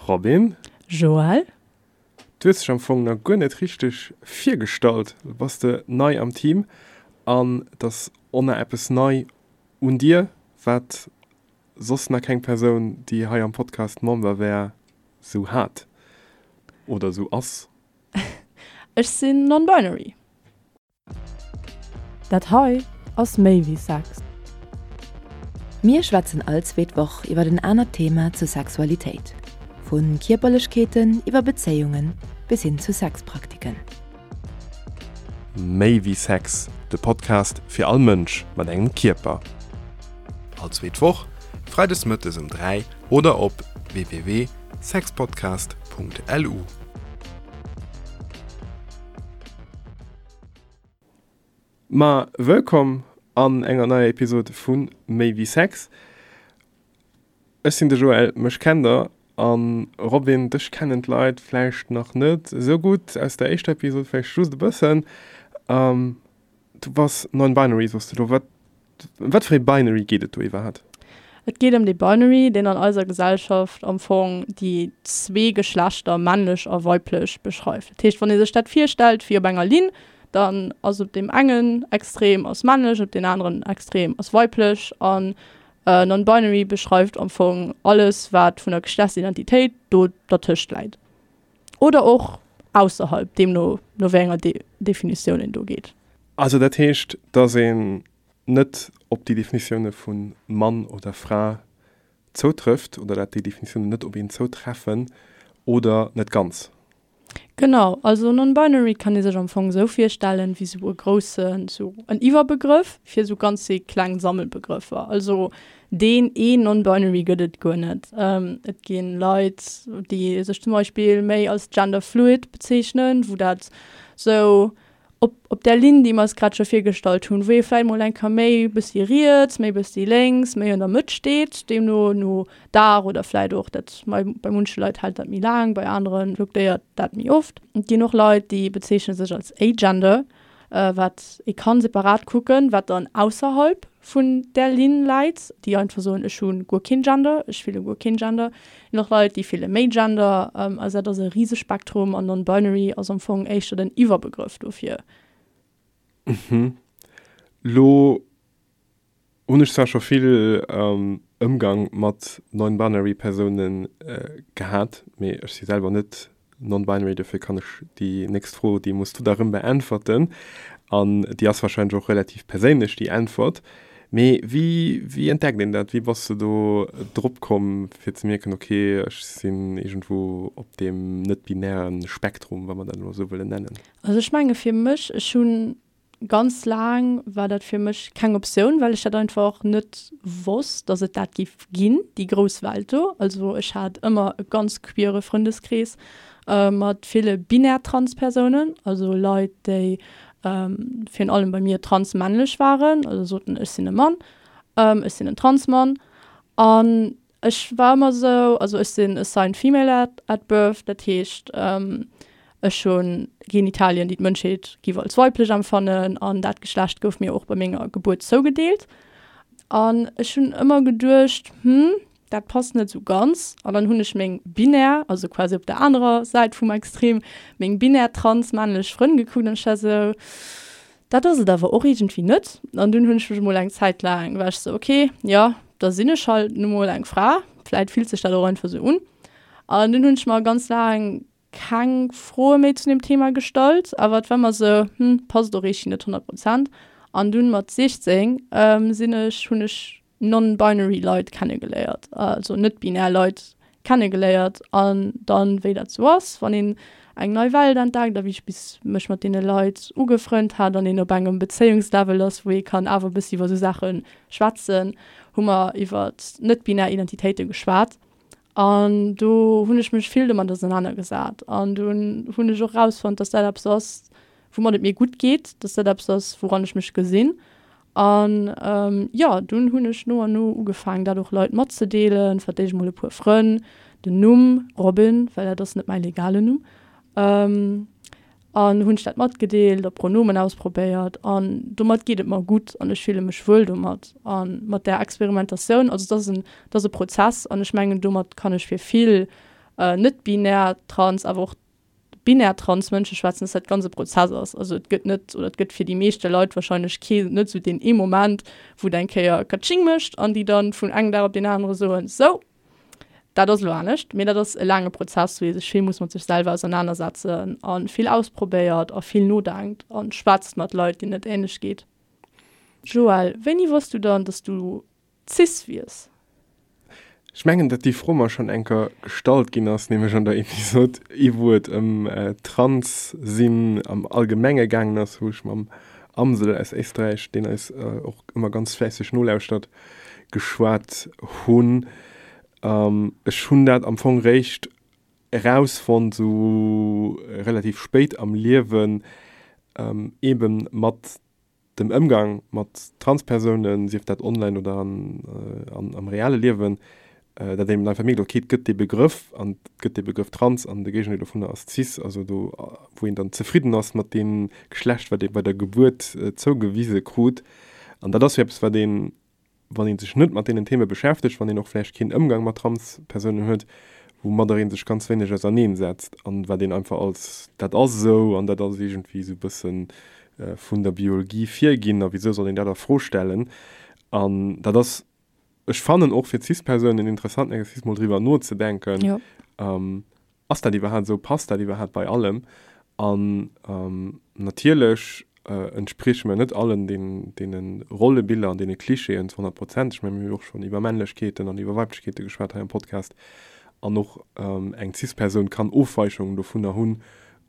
Robin. Joël. Du hues dech am Fong nach guer net richteg virgestallt. Lo bass de nei am Team an et ass och nach eppes nei un dir, wat soss nach keng Persoun, déi hei am Podcast Member wär, sou hat oder sou ass. Ech sinn non-binary. Dat hei ass méi wéi Sex. Mir schwätzen all zweet Woch iwwer en anert Thema zur Sexualitéit, vu Kierperlechkeeten iwwer Bezéiunge bis hin zu Sexpraktiken. Méi wéi Sex, de Podcast fir all Mënsch mat engem Kierper. All zweet Woch, freides mëttes um 3 oder op www.sexpodcast.lu. Ma wëllkomm an enger neier Episode vu Méi wéi Sex. Ech sinn de Joël, mech kennt der, an Robin, dech kennen d'Leit vläicht nach net esou gutt, aus der éischter Episode vläicht just e bëssen. Du bass non-binary, soss de lo. Wat Ëm wat fir ee Binary geet et do iwwerhaapt? Et geet ëm dee Binary, deen an eiser Gesellschaft am Fong déi zwee Geschlechter, männlech a weiblech, beschreift. Dat heescht, wann ee sech dat virstellt wéi op enger Linn, dann ass op deem engen Extrem ass männlech, op deen aneren Extrem ass weiblech. An Non-Binary beschreift am Fong alles, wat vun der Geschlechtsidentitéit do dertëscht läit. Oder och ausserhalb, deemno no wéi enger Definitioun een do geet. Also dat heescht, datt een net op déi Definitioune vu Mann oder Fra zoutrëfft oder dat déi Definitiounen net op een zoutreffen oder net ganz? Genau, also non-binary kann ee sech am Fong esou virstellen, wéi esou e groussen, esou en Iwwerbegrëff fir esou ganz vill kleng Sammelbegrëffer. Also deen een non-binary gëtt et guer net. Et gi Leit, déi sech zum Beispill méi als genderfluid bezeechnen, wou dat esou op, op där Linn, déi mer eis grad scho virgestallt hunn, wou ee vläicht mol eng Kéier méi e bëssi riets, méi e bëssi lénks, méi an der Mëtt steet, deemno no Dag oder vläicht och dat, bei munche Leit hält dat méi laang, bei anere fluktéiert dat méi oft. Et ginn och Leit, déi bezeechne sech als agender, wat ee kann separat kucken, wat dann ausserhalb vun där Linn läit, déi einfach soen, ech hu guer keen Gender, ech fille guer keen Gender. Et ginn och Leit, déi fille méi Gender. Also dat ass e rise Spektrum an non-binary ass am Fong éischter den Iwwerbegrëff dofir. Mhm. Lo hunn ech zwar scho vill Ëmgang mat non-binary Persoune gehat, mee ech si selwer net Non-binary, dofir kann ech déi nächst Fro, déi muss du da rëm beäntwerten an déi ass wahrscheinlech och relativ perséinlech, déi Äntwert. Mee wéi, wéi entdeckt een dat? Wéi bass de do drop komm fir ze mierken, ok, ech sinn iergendwou op deem net-binäre Spektrum, wa mer dat elo esou wëllen nennen? Also ech menge fir mech, ech hunn Ganz laang war dat fir mech keng Optioun, well ech dat einfach net wosst, dass et dat giff ginn, déi grouss Welt do. Also ech hat ëmmer e ganz queere Frëndeskrees mat ville binär Transpersounen, also Leit, déi virun allem bei mir transmännlech waren, also soten, ech sinn e Mann, ech sinn en Transmann. An Ech war ëmmer esou, also ech sinn assigned female at at birth, dat heescht ech hu Genitalien, déi d'Mënschheet giff als weiblech empfannen an dat Geschlecht gouf mir och bei menger Gebuert zougedeelt. An ech hunn ëmmer geduecht, hm, dat passt net esou ganz. An dann hunn ech meng binär, also quasi op der anerer Säit vum Extrem, meng binär trans männlech Frënn gekuckt an ech war esou, Dat ass et awer och iergendwéi net. An dunn hunn ech mech emol eng Zäit laang, war ech sou, ok, jo, da sinn ech halt nu mol eng Fra, vläit fillt sech dat och einfach sou un. An dunn hunn ech mer ganz laang keng Froe méi zu deem Thema gestallt, awer et war ëmmer sou, hm, passt och iergendwéi net 100 Prozent. An dunn mat 16 sinn ech, hunn ech non-binary Leit kennegeléiert, also net-binär Leit kennegeléiert an dann, wéi dat sou ass, wann een eng nei Welt entdeckt a wéi ech bis mech mat deene Leit ugefrënnt hat an een op engem Bezéiungslevel ass, wou ee kann awer e bëssi iwwer sou Saache schwätzen, hu mer iwwer net-binär Identitéite geschwat an do hunn ech mech vill domat ausenanergesat an dunn hunn ech och erausfonnt, dass dat eppes ass, woumat et mir gutt geet, dass dat eppes ass, wouran ech mech gesinn An jo, dunn hunn ech no an no ugefaangen, dat och Leit matzedeelen, fir d'éischt mol e puer Frënn, den Numm Robin, well dat ass net mäi legalen Numm, an hunn ech dat matgedeelt a Pronomen ausprobéiert an domat geet et mer gutt an ech fille mech wuel domat a mat där Experimentatioun. Also et ass en, et ass e Prozess an ech mengen, domat kann ech fir vill. Net-binär trans, awer och binär trans Mënsche schwätzen, dass dat ganz e Prozess ass. Also et gëtt net, oder et gëtt fir déi meeschte Leit wahrscheinlech kee, net esou deen ee Moment, wou et eng Kéier Katsching mécht an déi dann vun engem Dag op deen anere soen, sou, dat ass elo anescht. Mee dat ass e laange Prozess, wou ee sech vill muss mat sech selwer ausernanersetzen a vill ausprobéiert a vill nodenkt a schwätzt mat Leit, deenen et änlech geet. Joël, wéini wosst du dann, dass du cis wiers? Ech mengen, datt déi Fro mer schonn eng Kéier gestallt ginn ass, nämlech an der Episod, wou et ëm Trans-Sinn am Allgemenge gaangen ass, wou ech mam Amsel aus Éisträich, deen eis och ëmmer ganz fläisseg nolauschtert, geschwat hunn. Ech hunn dat am Fong réischt erausfonnt, esou relativ spéit am Liewen, eebe mat dem Ëmgang mat Transpersounen, sief dat online oder am reale Liewen, datt een einfach mierkt, ok, et gëtt dee Begrëff an et gëtt dee Begrëff trans an de Géigendeel dovunner ass cis, also do wou een dann zefridden ass mat deem Geschlecht, wat ee bei der Gebuert zougewise krut. An dat ass jo eppes, wat een wann ee sech net mat deenen Theme beschäftegt, wann een och vläicht keen Ëmgang mat Transpersounen huet, woumadder ee sech ganz wéineg auserneen setzt an wat een einfach als dat ass esou an dat ass iergendwéi esou e bësse vun der Biologie virginn a wisou soll een dat a Fro stellen. An dat ass, ech fannen, och fir Cis-Persounen en interessanten Exercice mol driwwer nozedenken, Ass dat iwwerhaapt esou? Passt dat iwwerhaapt bei allem? An natierlech entsprieche mir net allen deene Rollebiller an deene Klischeeën zu 100 Prozent. Ech mengen, mir hu jo och schonn iwwer Männlechkeeten an iwwer Weiblechkeete geschwat hei am Podcast. An och eng Cis-Persoun kann Ofweichungen dovunner hunn,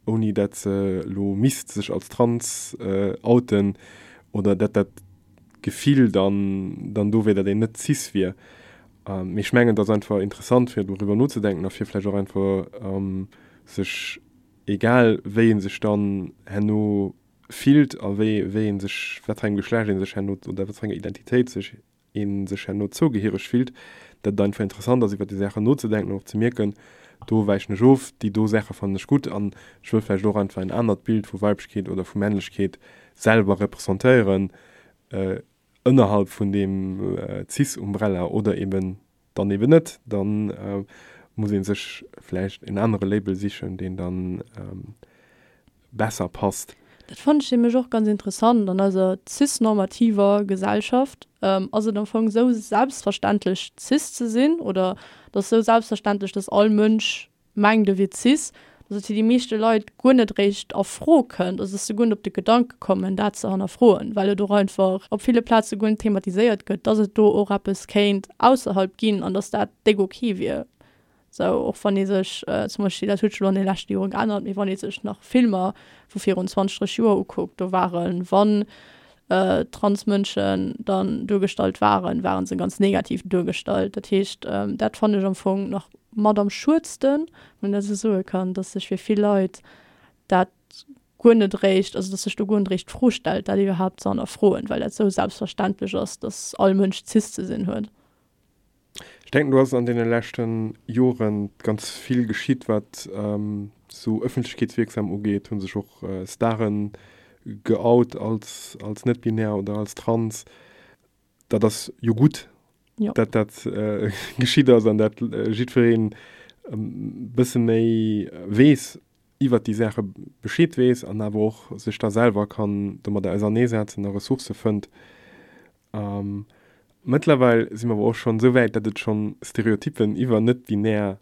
ouni dat se elo misst sech als trans outen oder dat dat Gefill dann dann do wier, datt een net cis wier. Mee ech mengen, et ass einfach interessant, fir doriwwer nozedenken a fir vläicht och einfach sech, egal wéi ee sech dann herno fillt a wéi wéi ee sech, wat fir engem Geschlecht ee sech herno oder wat fir enger Identitéit sech ee sech herno zougehiereg fillt, datt et einfach interessant ass, iwwer déi Saachen nozedenken an och ze mierken, do wäichen ech of, déi do Saache fannen ech gutt an ech wëll vläicht och einfach en anert Bild vu Weiblechkeet oder vu Männlechkeet selwer representéieren, ënnerhalb vun deem Cis-Umbrella oder eben dann eben net, dann muss ee sech vläicht en anere Label sichen, deen dann besser passt. Dat fannen ech nämlech och ganz interessant. An eiser cisnormativer Gesellschaft ass et am Fong esou selbstverständlech cis ze sinn oder et ass esou selbstverständlech, dass all Mënsch mengt e wier cis, dass et fir déi meeschte Leit guer net eréischt a Fro kënnt, also dass se guer net op de Gedanke kommen, dat ze hannerfroen, well et och einfach op ville Plaze guer net thematiséiert gëtt, dass et do och eppes kéint ausserhalb ginn an dass dat déck ok wier. Sou, och wann ee sech zum Beispill, dat huet sech elo an de leschte Jore geännert, mee wann ee sech nach Filmer vu virun 20, 30 Joer ukuckt, do waren, wann Transmënschen dann duergestallt waren, waren se ganz negativ duergestallt. Dat heescht, dat fannen ech am Fong nach mat am schuedsten, wann een dat esou soe kann, dass sech fir vill Leit dat guer net eréischt, also dass sech do guer net eréischt d'Fro stellt, dat iwwerhaapt ze hannerfroen, well dat esou selbstverständlech ass, dass all Mënsch cis ze sinn huet. Ech denken, do ass an deene leschte Jore ganz vill geschitt, wat esou ëffentlechkeetswierksam ugeet. Hu sech och Stare geout als, als net-binär oder als trans. Dat ass jo gutt, dat dat geschitt ass an dat jiddwereen e bësse méi weess iwwert déi Saache Bescheed weess an awer och sech da selwer kann domadder auserneesetzen a Ressourcë fënnt. Mëttlerweil si mer awer och schonn esou wäit, datt et schonn Stereotyppen iwwer net-binär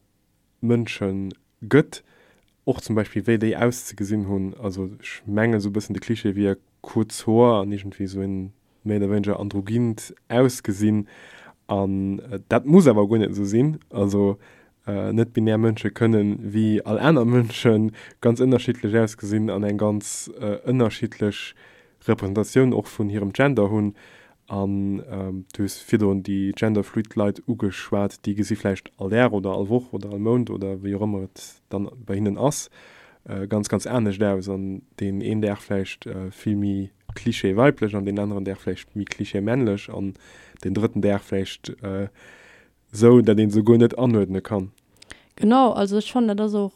Mënsche gëtt, och zum Beispill wéi déi auszegesinn hunn. Also ech mengen esou e bëssen de Klischee wier kuerz Hoer an iergendwéi esou en méi oder wéineger androgynt Ausgesinn. An dat muss awer guer net esou sinn. Also net-binär Mënsche kënnen wéi all aner Mënsche ganz ënnerschiddlech ausgesinn an eng ganz ënnerschiddlech Representatioun och vun hirem Gender hunn. An du hues virdrun déi genderfluid Leit ugeschwat, déi gesi vläicht all Dag oder all Woch oder all Mount oder wéi och ëmmer et dann bei hinnen ass, ganz, ganz anescht aus. An deen een Dag vläicht vill méi Klischee weiblech an deen aneren Dag vläicht méi Klischee männlech an deen drëtten Dag vläicht esou, dat ee se guer net anuerdne kann. Genau, also ech fannen dat ass och,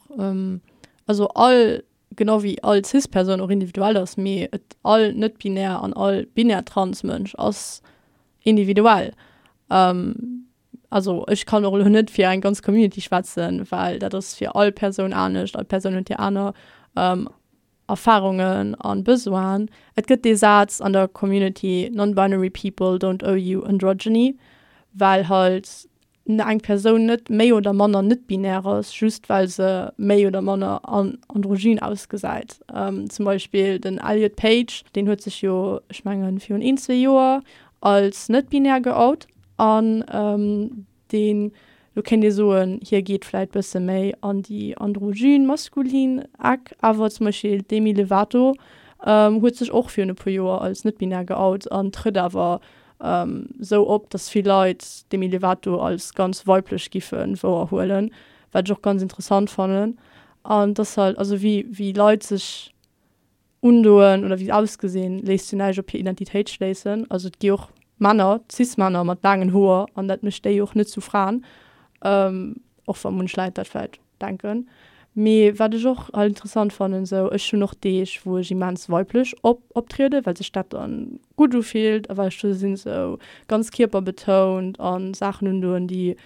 also all genau wéi all Cis-Persoun och individuell ass, mee et all net-binär an all binär Trans-Mënsch ass individuell. Also ech kann och elo net fir eng ganz Community schwätzen, well dat ass fir all Persoun anescht, all Persoun huet hir aner Erfarungen an Besoinen. Et gëtt dee Saz an der Community, Non-binary people don't owe you androgyny, well halt eng Persoun net méi oder manner net-binär ass, just well se méi oder manner androgyn ausgesäit. Zum Beispill den Elliot Page, deen huet sech jo, ech mengen, virun een, zwee Joer als net-binär geout an deen, lo kéint ee soen, hie geet vläit bësse méi an déi androgyn, maskulin Eck, awer zum Beispill d'Demi Lovato huet sech och virun e puer Joer als net-binär geout an trëtt awer sou op, dass vill Leit Demi Lovato als ganz weiblech giffe wouerhuelen, wat ech och ganz interessant fannen. An dass halt, also wéi wéi Leit sech undoen oder wéi se ausgesinn, léisst jo näischt op hir Identitéit schléissen. Also et gi och Männer, Cis-Männer mat laangen Hoer an dat mécht déi och net zu Fraen, och wa munch Leit dat vläicht denken. Mee wat ech och halt interessant fannen, sou ech hunn och Deeg wou ech immens weiblech op optrieden, well sech dat dann gutt ufillt a well ech do sinn sou ganz kierperbetount an Saachen undoen déi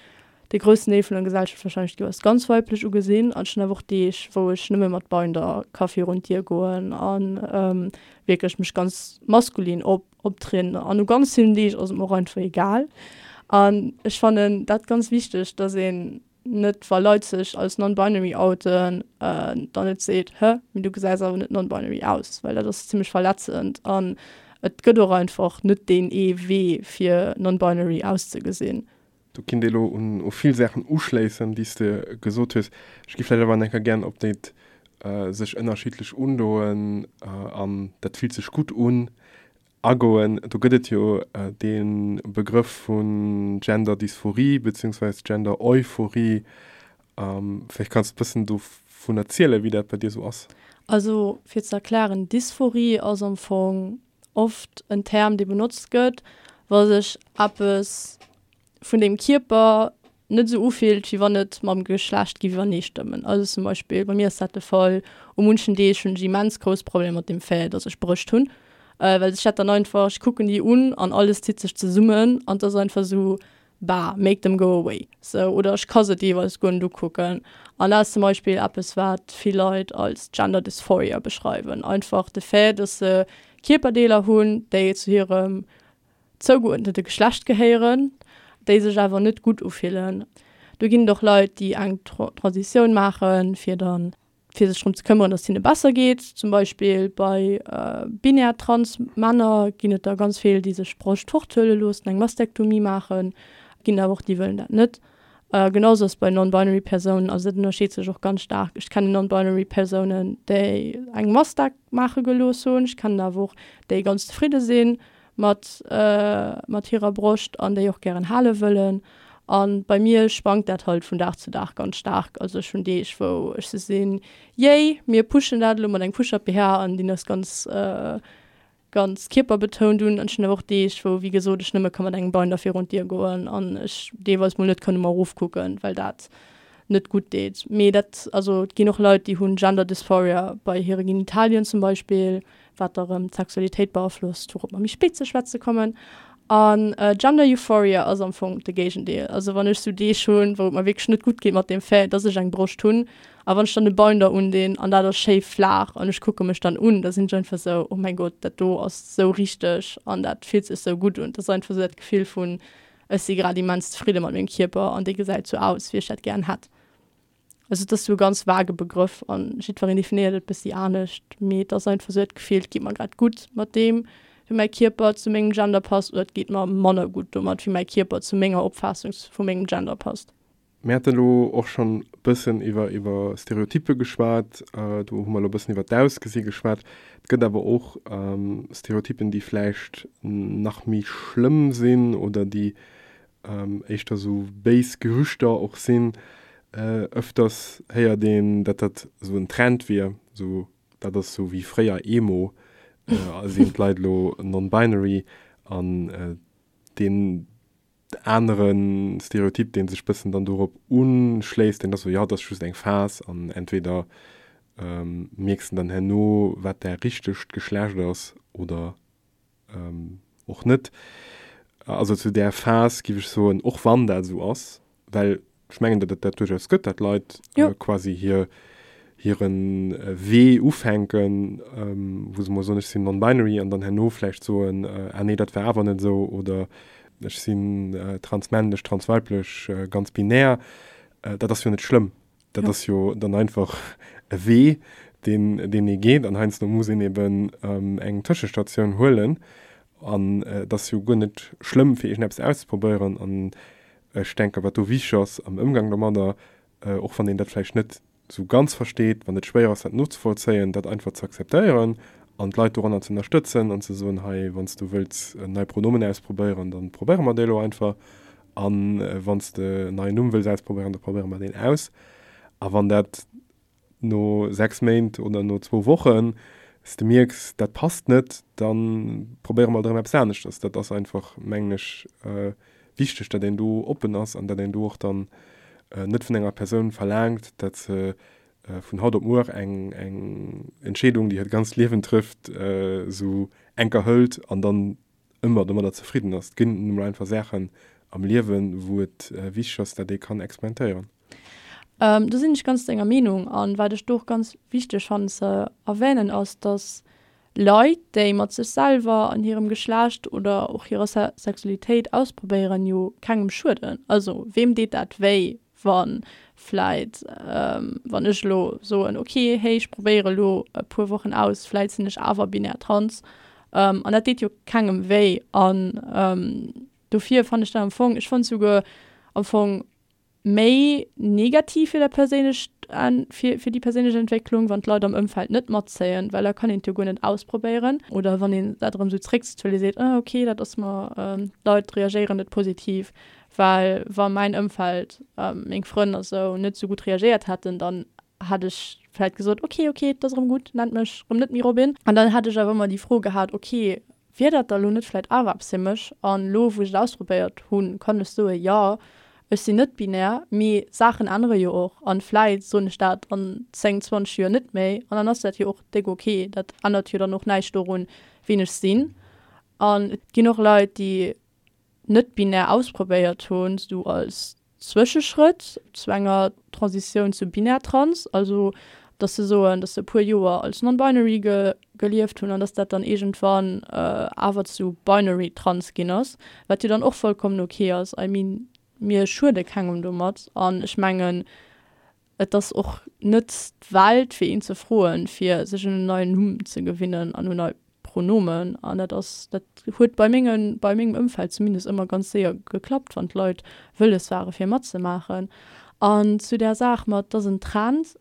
de groussen Deel vun der Gesellschaft wahrscheinlech géif als ganz weiblech ugesinn. An ech hunn awer och Deeg wou ech nëmme mat Binder ka virun d'Dier goen an wierklech mech ganz maskulin op optrieden. An u ganz villen Deeg ass et mer och einfach egal. An ech fannen dat ganz wichteg, dass een net wa Leit sech als non-binary outen, dann net seet, hë, mee du gesäis awer net non-binary aus, well dat ass zimmlech verletzend an et gëtt och einfach net deen ee Wee fir non-binary auszegesinn. Do kinnt ee lo un u vill Saachen uschléissen, déi s de gesot hues. Ech gi vläicht awer nach eng Kéier gären op déi sech ënnerschiddlech undoen an dat fillt sech gutt un Agoen. Do gëtt et jo dee Begrëff vun Gender-Dysphorie beziehungsweise Gender-Euphorie. Vläicht kanns de e bëssen dovun erzielen, wéi dat bei dir esou ass. Also fir ze erklären, Dysphorie ass am Fong oft en Term, dee benotzt gëtt, wa sech eppes vun dem Kierper net esou ufillt, wéi wann et mam Geschlecht géif iwwerneestëmmen. Also zum Beispill, bei mir ass dat de Fall, u munchen Deeg hunn ech immens grouss Problemer mat dem Fait, datt ech Brëscht hunn, well sech dat dann einfach, ech kucken déi un an alles zitt sech zesummen an et ass einfach esou, bah, make them go away, sou. Oder ech ka se deelweis guer net ukucken. An dat ass zum Beispill eppes, wat vill Leit als Gender Dysphoria beschreiwen, einfach de Fait, datt se Kierperdeeler hunn, déi zu hirem zougeuerdnete Geschlecht gehéieren, déi sech awer net gutt ufillen. Do ginn et och Leit, déi eng Transitioun maachen, fir dann, fir sech drëm ze këmmeren, datt et hinne besser geet. Zum Beispill bei binär trans Männer ginn et der ganz vill, déi sech d'Broscht forthuele loossen, eng Mastektomie maachen. Et ginn awer och déi wëllen dat net. Genau sou ass et bei non-binary Persounen. Also dat ënnerscheet sech och ganz staark. Ech kennen non-binary Persounen, déi eng Mastek maache gelooss hunn. Ech kennen awer och déi ganz zefridde sinn mat mat hirer Broscht an déi och gären hale wëllen. An bei mir schwankt dat halt vun Dag zu Dag ganz staark. Also ech hunn Deeg wou ech sou sinn, yay, mir pushen dat elo mat engem Push-up BH an deen ass ganz ganz kierperbetount un. An ech hunn awer och Deeg wou wéi gesot ech nëmme ka mat engem Binder virun d'Dier goen an ech deelweis mol net kann no mer erofkucken, well dat net gutt deet. Mee dat, also et ginn och Leit déi hunn Gender Dysphoria bei hire Genitalien zum Beispill, wat da rëm d'Sexualitéit beaflosst, wourop mer méi spéit ze schwätze kommen. An Gender Euphoria ass am Fong de Géigendeel. Also wann ech sou Deeg hunn, wou et mer wierklech net gutt geet mat deem Fait, dass ech eng Broscht hunn, a wann ech dann e Binder undinn an dat ass schéi flaach an ech kucke mech dann un, da sinn ech einfach sou, oh mäin Gott, dat do ass sou richteg an dat fillt sech sou gutt un. Dat ass einfach sou dat Gefill vun, ech si grad immens zefridde mat mengem Kierper an dee gesäit sou aus, wéi ech dat gären hätt. Also et ass sou e ganz vage Begrëff an jiddwereen definéiert et bëssi anescht, mee et ass einfach sou dat Gefill, et geet mer grad gutt mat deem, wéi mäi Kierper zu mengem Gender passt oder et geet mer manner gutt domat, wéi mäi Kierper zu menger Opfaassung vu mengem Gender passt. Mir hate lo och schonn e bëssen iwwer iwwer Stereotyppe geschwat, do hu mer lo e bëssen iwwer d'Ausgesi geschwat. Et gëtt awer och Stereotyppen, déi vläicht nach méi schlëmm sinn oder déi éischter sou béis Gerüchter och sinn. Ëfters héiert een, datt dat sou en Trend wier, sou dat ass sou wéi fréier Emo, sinn d'Leit elo non-binary an deen anere Stereotyp, dee sech bëssen dann dorop uschléisst, deen ass sou, jo, dat ass just eng Phas an entweder mierks de dann herno, wat däi richtegt Geschlecht ass oder och net. also zu där Phas, géif ech soen, och wann dat esou ass, well ech mengen, datt et dat duerchaus gëtt, datt Leit quasi hir, hire Wee ufänken, wou se mol soen, ech sinn non-binary an dann herno vläicht soen, ah nee, dat war awer net esou oder ech sinn transmännlech, transweiblech, ganz binär. Dat ass jo net schlëmm. Dat ass jo dann einfach e Wee, deen, deen ee geet an heiansdo muss een eben eng Tëschestatioun huelen an et ass jo guer net schlëmm, fir iergendeppes auszeprobéieren an ech denken, wat do wichteg ass am Ëmgang domadder, och wann een dat vläicht net esou ganz versteet, wann et schwéier ass dat nozevollzéien, dat einfach ze akzeptéieren an d'Leit doranner ze ënnerstëtzen an ze soen, hei wann s du wëlls nei Pronomen ausprobéieren, da probéiere mer déi elo einfach a wann s de en neien Numm wëlls ausprobéieren, da probéiere mer deen aus. A wann dat no 6 Méint oder no zwou Wochen s de mierks, dat passt net, da probéiere mer alt erëm eppes aneschters. Dat ass einfach, mengen ech, wichteg, datt een do oppen ass an datt een do och dann net vun enger Persoun verlaangt, datt se vun haut op muer eng eng Entscheedung, déi hiert ganzt Liewen trëfft, esou enker hëlt an dann ëmmer domadder zefridden ass. Et ginn nun emol einfach Saachen am Liewen, wou et wichteg ass, datt ee kann experimentéieren. Do sinn ech ganz denger Meenung. An wat ech do och ganz wichteg fannen ze erwänen ass, dass Leit, déi mat sech selwer an hirem Geschlecht oder och hirer Sexualitéit ausprobéieren, jo kengem schueden. Also weem deet dat wéi, wa vläit, wann ech elo soen, ok, hey, ech probéiere elo e puer Wochen aus, vläit sinn ech awer binär trans. An dat deet jo kengem wéi. An dofir fannen ech dat am Fong, ech fannen souguer am Fong méi negativ fir dat perséinlecht fir fir déi perséinlech Entwécklung, wann d'Leit am Ëmfeld net matzéien, well da kann een et jo guer net ausprobéieren. Oder wann een dat erëm esou zréckzitt, well ee seet, ah ok, dat ass mer, d'Leit reagéieren net positiv, well wa mäin Ëmfeld, meng Frënn a sou, net esou gutt reagéiert hätten, dann hätt ech vläit gesot, ok, ok, et ass erëm gutt, nennt mech erëm net méi Robin. An dann hätt ech awer ëmmer déi Fro gehat, ok, Wier dat da lo net vläit awer eppes fir mech? An lo wou ech et ausprobéiert hunn, kann ech soen, jo, ech sinn net binär, mee Saachen ännere jo och an vläit soen ech dat an 10, 20 Joer net méi an dann ass dat jo och déck ok. Dat ännert jo dann och näischt dorun, wien ech sinn. An et ginn och Leit, déi net binär ausprobéiert hunn, sou als Zwëscheschrëtt zu enger Transitioun zu binär trans, also dass se soen, dass se e puer Joer als non-binary ge gelieft hunn an dass dat dann iergendwann awer zu binary trans ginn ass, wat jo dann och vollkommen ok ass. I mean, mir schuede kengem domat an ech mengen, et ass och net d'Welt fir een ze froen, fir sech un en neien Numm ze gewinnen an un nei Pronomen. An dat ass, dat huet bei menge, bei mengem Ëmfeld zumindest ëmmer ganz séier geklappt, wann d'Leit wëlles ware fir matzemaachen. An zu där Saach mat, et ass en Trend,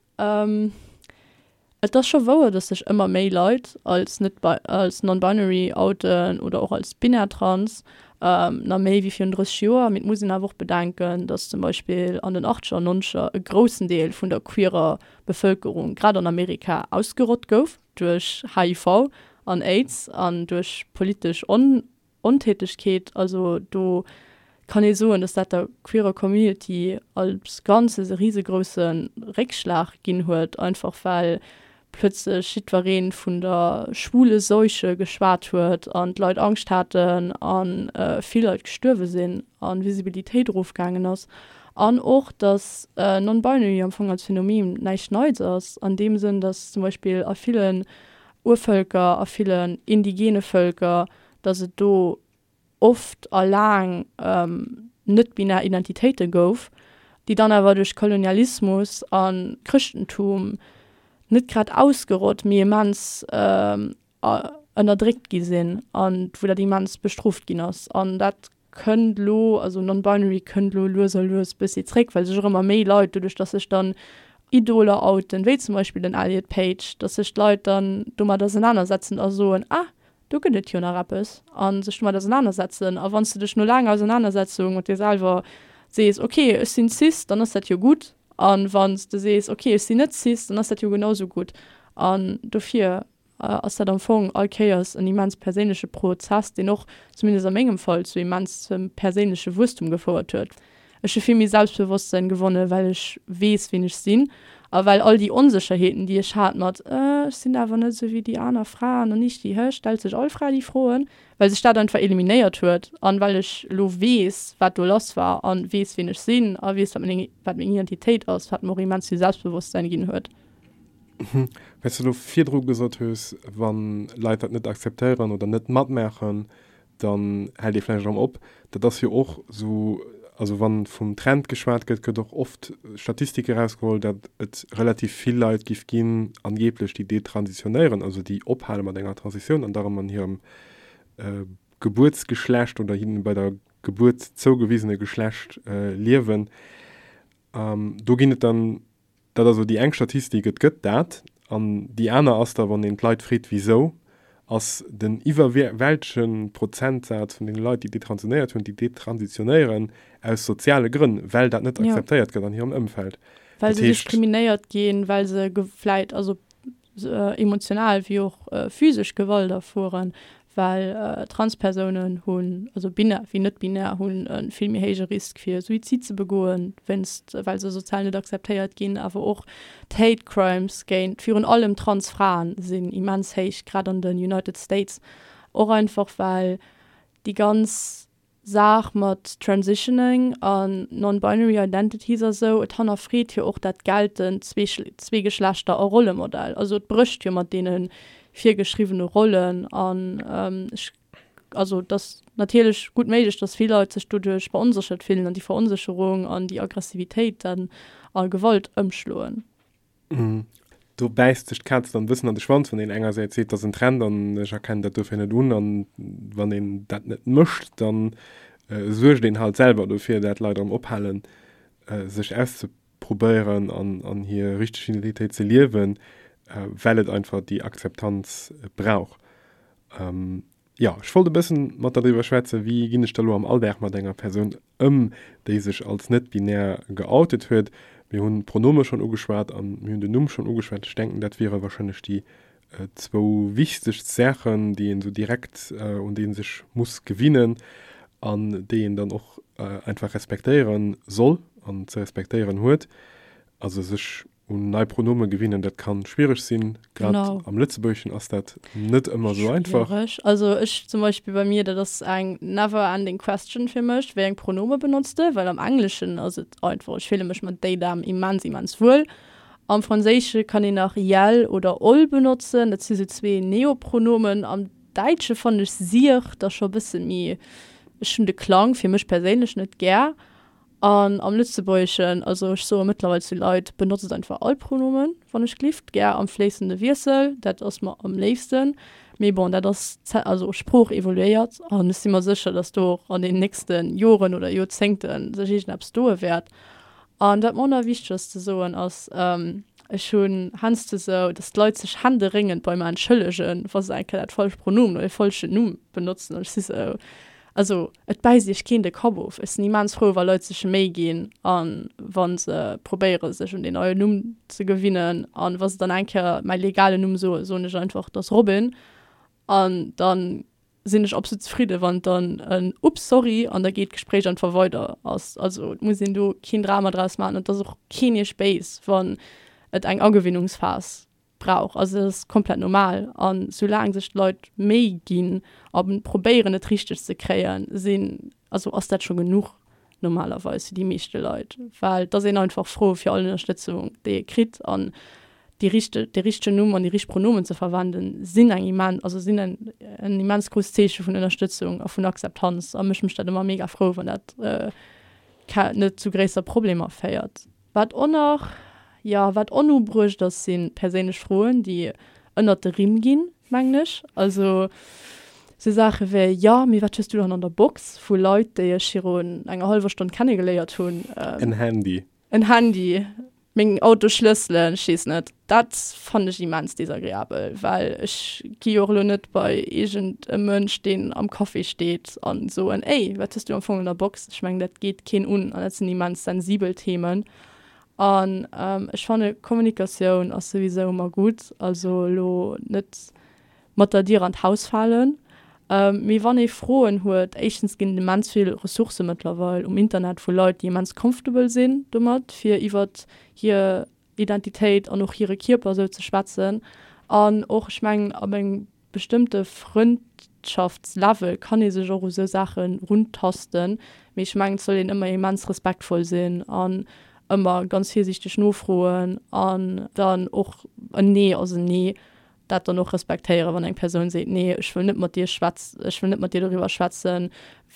Et ass scho wouer, dass sech ëmmer méi Leit als net als non-binary outen oder och als binär trans, nach méi wéi virun 30 Joer. Mee et muss een awer och bedenken, dass zum Beispill an den Achtzeger an Nonzeger e groussen Deel vun der queerer Bevëlkerung, grad an Amerika, ausgerott gouf duerch HIV an Aids an duerch politesch On Ontätegkeet, also do kann ee soen, dass dat der queerer Community als Ganzes e risegrousse Réckschlag ginn huet, einfach well plötzlech jiddweree vun der schwule Seuche geschwat huet an d'Leit Angscht haten a vill Leit gestuerwe sinn a Visibilitéit erofgaangen ass. An och, dass Non-Binary am Fong als Phänomen näischt Neits ass, an deem Sënn, dass zum Beispill a villen Urvëlker, a villen indigene Vëlker, datt et do oft a laang net-binär Identitéite gouf, déi dann awer duerch Kolonialismus a Chrëschtentum net grad ausgerott, mee immens ënnerdréckt gi sinn a wou dat immens bestrooft ginn ass. An dat kënnt elo, also non-binary kënnt elo lues a lues bëssi zréck, well sech och ëmmer méi Leit, doduerch datt sech dann Idoler outen, wéi zum Beispill den Elliot Page, datt sech d'Leit dann domat ausenanersetzen a soen, ah, do gëtt et jo nach eppes, a sech domat ausenanersetzen. A wann s de dech no laanger Ausenanersetzung mat dir selwer sees, ok, ech sinn cis, dann ass dat jo gutt. A wann s de sees, ok, ech sinn net cis, dann ass dat jo genau sou gutt. An dofir ass dat am Fong all Kéiers en immens perséinleche Prozess, deen och, zumindest a mengem Fall, zu immensem perséinleche Wuesstum gefouert huet. Ech hu vill méi Selbstbewosstsein gewonnen, well ech weess, wien ech sinn. A well all déi Onsécherheeten, déi ech hat mat, ech sinn awer net esou wéi déi aner Fraen an ich, déi, hä, stellt sech all Fra déi Froen, well sech dat einfach eliminéiert huet an well ech elo weess, wat do lass war an weess, wien ech sinn a weess, wat meng, wat meng Identitéit ass, wat mer och immens vill Selbstbewosstsein ginn huet. Well s de elo virdru gesot hues, wa Leit dat net akzeptéieren oder net matmaachen, dann hält ee vläicht erëm op. Dat ass jo och esou, also wa vum Trend geschwat gëtt, gëtt och oft Statistike erausgeholl, datt et relativ vill Leit giff ginn, angeblech, déi detransitionéieren, also déi ophale mat enger Transitioun an da erëm an hirem Gebuertsgeschlecht oder hinnen bei der Gebuert zougewisene Geschlecht liewen. Do ginn et dann Dat ass elo déi eng Statistik, et gëtt dat. An déi aner ass da, wann een d'Leit freet, wisou, ass den iwwerwältege Prozentsaz vun deene Leit, déi detransitionéiert hunn, déi detransitionéieren aus soziale Grënn, well dat net akzeptéiert gëtt an hirem Ëmfeld. Well se diskriminéiert ginn, well se vläit, also emotional wéi och physesch Gewalt erfueren, well Transpersounen hunn, also binär wéi net-binär, hunn e vill méi héije Risk fir Suizid ze begoen, wéinst well se sozial net akzeptéiert ginn. Awer och d'Hate Crimes géint virun allem Transfraen sinn immens héich, grad an den United States, och einfach well déi ganz Saach mat Transitioning an Non-Binary Identities a sou, et hannerfreet jo och dat geltend Zweegeschlechter a Rollemodell. Also et brécht jo mat deene virgeschriwwene Rollen an ech, also et ass natierlech gutt méiglech, datt vill Leit sech doduerch veronséchert fillen an déi Veronsécherung an déi Aggressivitéit dann a Gewalt ëmschloen. Do bäisst sech d'Kaz dann e bëssen an de Schwanz, wann een engersäits seet, dat ass en Trend an ech erkennen dat dofir net un, an wann een dat net mécht, dann suergt een halt selwer dofir, dat Leit erëm ophalen, sech auszeprobéieren an hir richteg Identitéit ze liewen, well et einfach déi Akzeptanz brauch. Jo, ech wollt e bëssen mat der driwwer schwätzen, wéi ginn ech da lo am Alldag mat enger Persoun ëm, déi sech als net-binär geoutet huet. Mir hunn d'Pronome schonn ugeschwat an mir hunn den Numm schonn ugeschwat. Ech denken, dat wiere warscheinlech déi zwou wichtegst Saachen, déi een esou direkt, un déi ee sech muss gewinnen an déi een dann och einfach respektéiere soll an ze respektéieren huet. Also sech Un nei Pronome gewinnen, dat kann schwiereg sinn. Grad am Lëtzebuergeschen ass dat net ëmmer esou einfach. Schwiereg. Also ech zum Beispill bei mir, dat ass eng never ending question fir mech, wéi eng Pronome benotz de? Well am Engleschen ass et einfach, ech fille mech mat they, them immens, immens wuel. Am Franséische kann een nach iel oder ol benotzen, dat si sou zwee Neopronomen. Am Däitsche fannen ech sier da scho e bësse méi, ech hunn de Klang fir mech perséinlech net gär. An am Lëtzebuergeschen, also ech soe mëttlerweil zu Leit, benotzt einfach all Pronomen, wann ech glift, gär am fléissende Wiessel, dat ass mer am léifsten. Mee bon, dat ass, also Sprooch evoluéiert an ech si mer sécher, datt do och an den nächste Joren oder Joerzéngte sech iergendeppes doe wäert. An wat mer och nach wichteg ass ze soen, ass, ech hunn heiansdo sou, datt d'Leit sech händeréngend bei mer entschëllegen, wa se eng Kéier dat falscht Pronomen oder e falschen Numm benotzen an ech si sou, Also et bäisst iech keen de Kapp of. Ech sinn immens frou wa Leit sech Méi ginn a wa se probéiere sech un deen neien Numm ze gewinnen. An wa se dann eng Kéier mäi legalen Numm soen, soen ech einfach et ass Robin. An dann sinn ech absolut zefridde wann et dann en Ups sorry an da geet d'Gespréich einfach weider ass. Also et muss een do keen Drama draus maachen an et ass och keen iech béis wann et eng Agewinnungsphas brauch. Also dat ass komplett normal an soulaang sech d'Leit Méi ginn a probéieren et richteg ze kréien, sinn, also ass dat scho genuch normalerweis fir déi meeschte Leit, well et ass een einfach frou fir all Ënnerstëtzung déi ee kritt an déi richteg, dee richtegen Numm an déi richteg Pronomen ze verwenden sinn eng immen, also sinn en en immens grousst Zeeche vun Ënnerstëtzung a vun Akzeptanz a mech mécht dat ëmmer mega frou wann dat net zu gréisser Problemer féiert. Wat och nach, jo, wat onubruecht ass, si perséinlech Froen, déi ënnert de Rimm ginn, mengen ech. Also sou Saache wéi, Jo, mee wat hues du dann an der Box? vu Leit, déi ech virun enger hallwer Stonn kennegeléiert hunn. En Handy. En Handy, meng Autosschlësselen, ech weess net. Dat fannen ech immens desagreabel, well ech gi jo och elo net bei iergend e Mënsch, deen am Café steet a soen, Ey, wat hues du am Fong an der Box? Ech mengen, dat geet keen un an dat sinn immens sensibel Themen. An ech fanne Kommunikatioun ass souwisou ëmmer gutt, also elo net mat der Dier an d'Haus falen. Mee wann ee Froen huet, éischtens ginn et immens vill Ressourcë mëttlerweil um Internet vu Leit, déi immens comfortable sinn domat, fir iwwert hir. Identitéit an och hire Kierper esou ze schwätzen. An och, ech mengen, ab engem bestëmmte Frëndschaftslevel kann ee sech och u sou Saache runtasten. Mee ech mengen, et soll een ëmmer immens respektvoll sinn an ëmmer ganz virsiichteg nofroen an dann och en Nee ass en Nee, dat dann och respektéieren, wann eng Persoun seet, Nee, ech wëll net mat dir schwätz, ech wëll net mat dir doriwwer schwätzen,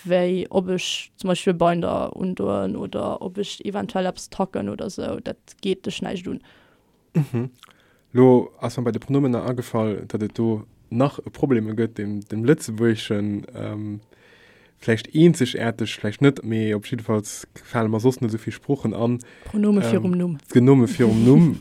wéi ob ech zum Beispill e Binder undoen oder ob ech eventuell eppes tacken oder sou, dat geet dech näischt un. Mhm. Lo ass mer bei de Pronomener agefall, datt et do nach e Probleme gëtt, deem dem Lëtzebuergeschen vläicht eenzegaarteg, vläicht net, mee op jiddefalls fale mer soss net esou vill Sproochen an. Pronome virum Numm. D'Genome virum Numm,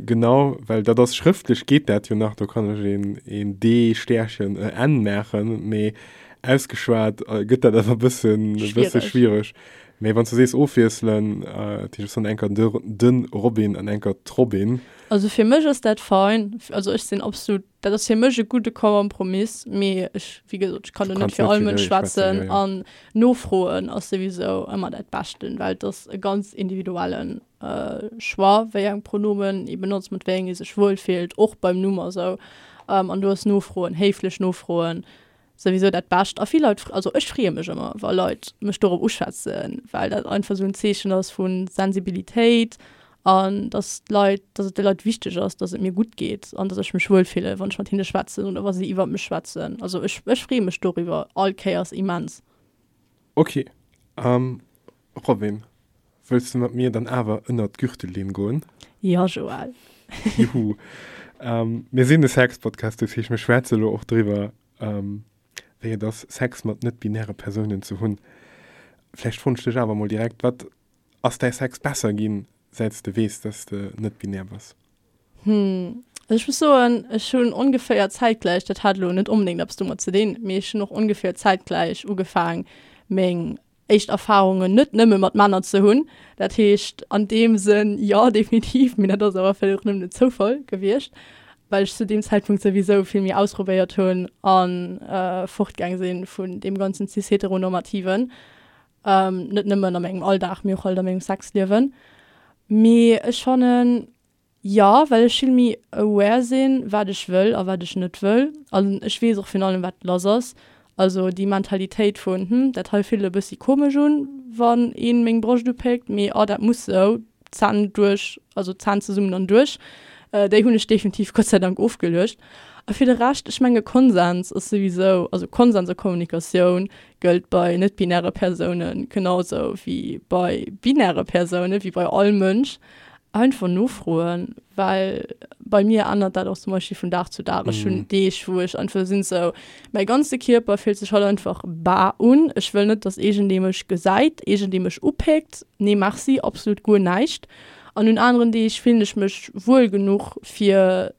genau, well dat ass schrëftlech geet dat jo nach, do kann ech een, een D Stärchen e N maachen, mee ausgeschwat gëtt dat awer e bëssen, e bësse schwiereg. Mee wann s du sees ofwiesselen, dat heescht, ech soen enker de, den Robin an enker d'Robin. Also fir mech ass dat fein. Also ech sinn absolut, dat ass fir mech e gudde Kompromiss, mee ech, wéi gesot, ech kann do net fir all Mënsch schwätzen an nofroen ass souwisou ëmmer dat Beschten, well et ass e ganz individuellen Choix, wéi eng Pronomen ee benotzt, mat wéi eng ee sech wuel fillt, och beim Numm a sou. An do ass nofroen, héiflech nofroen souwisou dat Bescht. A vill Leit, also ech freeë mech ëmmer, wa Leit mech dorop uschwätzen, well dat einfach esou en Zeechen ass vu Sensibilitéit an dass d'Leit, dass et de Leit wichteg ass, dass et mir gutt geet an dass ech mech wuel fillen, wann ech mat hinne schwätzen oder wa si iwwer mech schwätzen. Also ech, ech freeë mech doriwwer all Kéiers immens. Ok. Robin, wëlls de mat mir dann awer ënnert d'Gürtellinn goen? Jo, Joël. Juhu. Mir sinn e Sex-Podcast, dat heescht, mir schwätze elo och driwwer, wéi et ass, Sex mat net-binäre Persounen ze hunn. Vläicht froen ech dech awer emol direkt, Wat ass däi Sex besser ginn, säit s de weess, dass de net-binär bass? Hm, also ech muss soen, ech hunn ongeféier zäitgläich, dat hat elo net onbedéngt eppes domat ze dinn, mee ech hunn och ongeféier zäitgläich ugefaang, meng éischt Erfahrungen net nëmme mat Männer ze hunn. Dat heescht an deem Sënn jo, definitiv, mee dat ass awer vläicht och nëmmen en Zoufall gewiescht, well ech zu deem Zäitpunkt souwisou vill méi ausprobéiert hunn a fortgaang si vun deem ganzen cis-heteronormativen, net nëmmen a mengem Alldag, mee och halt a mengem Sexliewen. Mee ech fannen, Jo, well ech vill méi aware sinn, wat ech wëll a wat ech net wëll. An ech weess och virun allem, wat lass ass. Also déi Mentalitéit vun, hm, dat hei fillt e bëssi komesch un, wann een meng Broscht upéckt, mee oh, dat muss sou, Zänn duerch, also Zänn zesummen an duerch, déi hunn ech definitiv Gott sei Dank ofgeluecht. A fir de Rescht, ech menge Konsens ass souwisou, also Konsens a Kommunikatioun gëllt bei net-binäre Persoune genau sou wéi bei binäre Persounen, wéi bei all Mënsch. Einfach nofroen, well bei mir ännert dat och zum Beispill vun Dag zu Dag. Ech hunn Deeg, wou ech einfach sinn sou, mäi ganze Kierper fillt sech haut einfach bar un. Ech wëll net, dass iergendee mech gesäit, iergendee mech upéckt. Nee merci, absolut guer näischt. An un aneren Deeg fillen ech mech wuel genuch, fir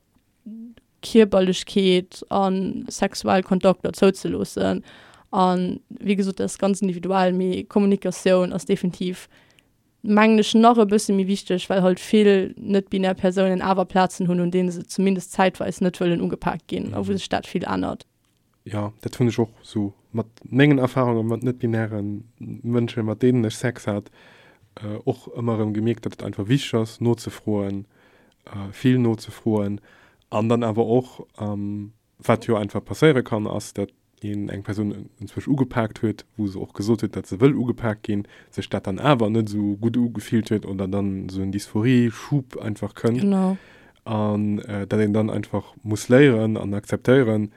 Kierperlechkeet a sexuell Kontakter zouzeloossen. An wéi gesot, dat ass ganz individuell, mee Kommunikatioun ass definitiv mengen ech, nach e bësse méi wichteg, well halt vill net-binär Persounen awer Plazen hunn, un deene se zumindest zäitweis net wëllen ugepaakt ginn a wou sech dat vill ännert. Jo, dat hunn ech och esou mat mengen Erfarunge mat net-binäre Mënschen, mat deenen ech Sex hat, och ëmmer erëm gemierkt, datt et einfach wichteg ass, nozefroen, vill nozefroen an dann awer och, wat jo einfach passéiere kann, ass, datt een eng Persoun enzwousch ugepaakt huet, wou se och gesot huet, datt se wëll ugepaakt ginn, sech dat dann awer net esou gutt ugefillt huet oder dann esou en Dysphorie-Schub einfach kënnt. Genau. An datt een dann einfach muss léieren an akzeptéieren,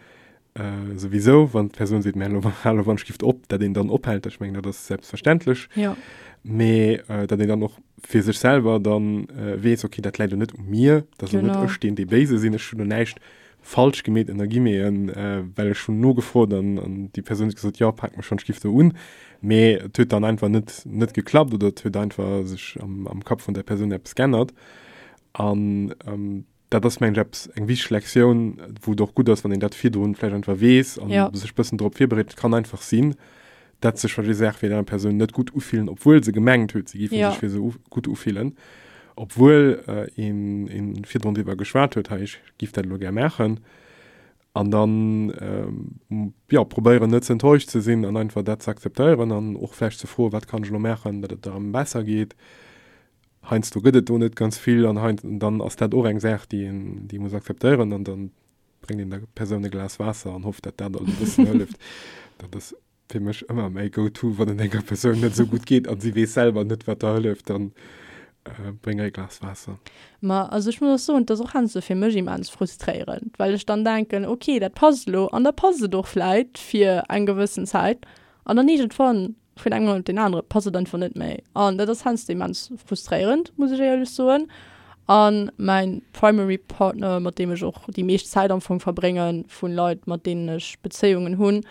souwisou, wann d'Persoun seet, mä elo hal wann ech gift op, datt een dann ophält. Ech mengen, dat ass selbstverständlech. Ja. Mee datt een dann och fir sech selwer dann weess, okay, dat läit elo net u mir, dat ass elo net ech, deen dee Béise sinn, ech hunn elo näischt falsch gemeet ënner Guillemeten, well ech hunn nogefrot an an déi Persoun huet gesot, jo pak mech schonn d'Stift do un, mee et huet dann einfach net net geklappt oder et huet einfach sech am am Kapp vun där Persoun eppes g'ännert an dat ass mengen ech eppes eng wichteg Lektioun, wou et och gutt ass, wann een dat virdrun vläicht einfach weess an Ja. sech bëssen drop virbereet. Et kann einfach sinn, dat sech verschidde Saache fir déi aner Persoun net gutt ufillen, obwuel se gemengt huet, se géife Ja. sech fir se gutt ufillen, obwuel een een virdrun driwwer geschwat huet, hei ech giff dat elo gär maachen. An dann jo probéieren net ze enttäuscht ze sinn an einfach dat ze akzeptéieren an och vläicht ze froen, wat kann ech elo maachen, datt et der erëm besser geet. Heiansdo gëtt et do net ganz vill an hei dann ass dat och eng Saach, déi een déi ee muss akzeptéieren an dann bréngt een der Persoun e Glas Waasser an hofft, datt dat alt e bëssen hëlleft. Dat ass fir mech ëmmer mäi Go-to, wann et enger Persoun net esou gutt geet an si weess selwer net, wat der hëlleft, dann bréng e Glas Waasser. Ma also ech muss och soen, et ass och heiansdo fir mech immens frustréierend, well ech dann denken, ok, dat passt elo an da passt et och vläit fir eng gewëssen Zäit an dann iergendwann vun engem Moment op deen anere passt et einfach net méi. An dat ass heiansdo immens frustréierend, muss ech éierlech soen. A mäin primary Partner, mat deem ech och déi meescht Zäit am Fong verbréngen, vu Leit, mat deenen ech Bezéiungen hunn,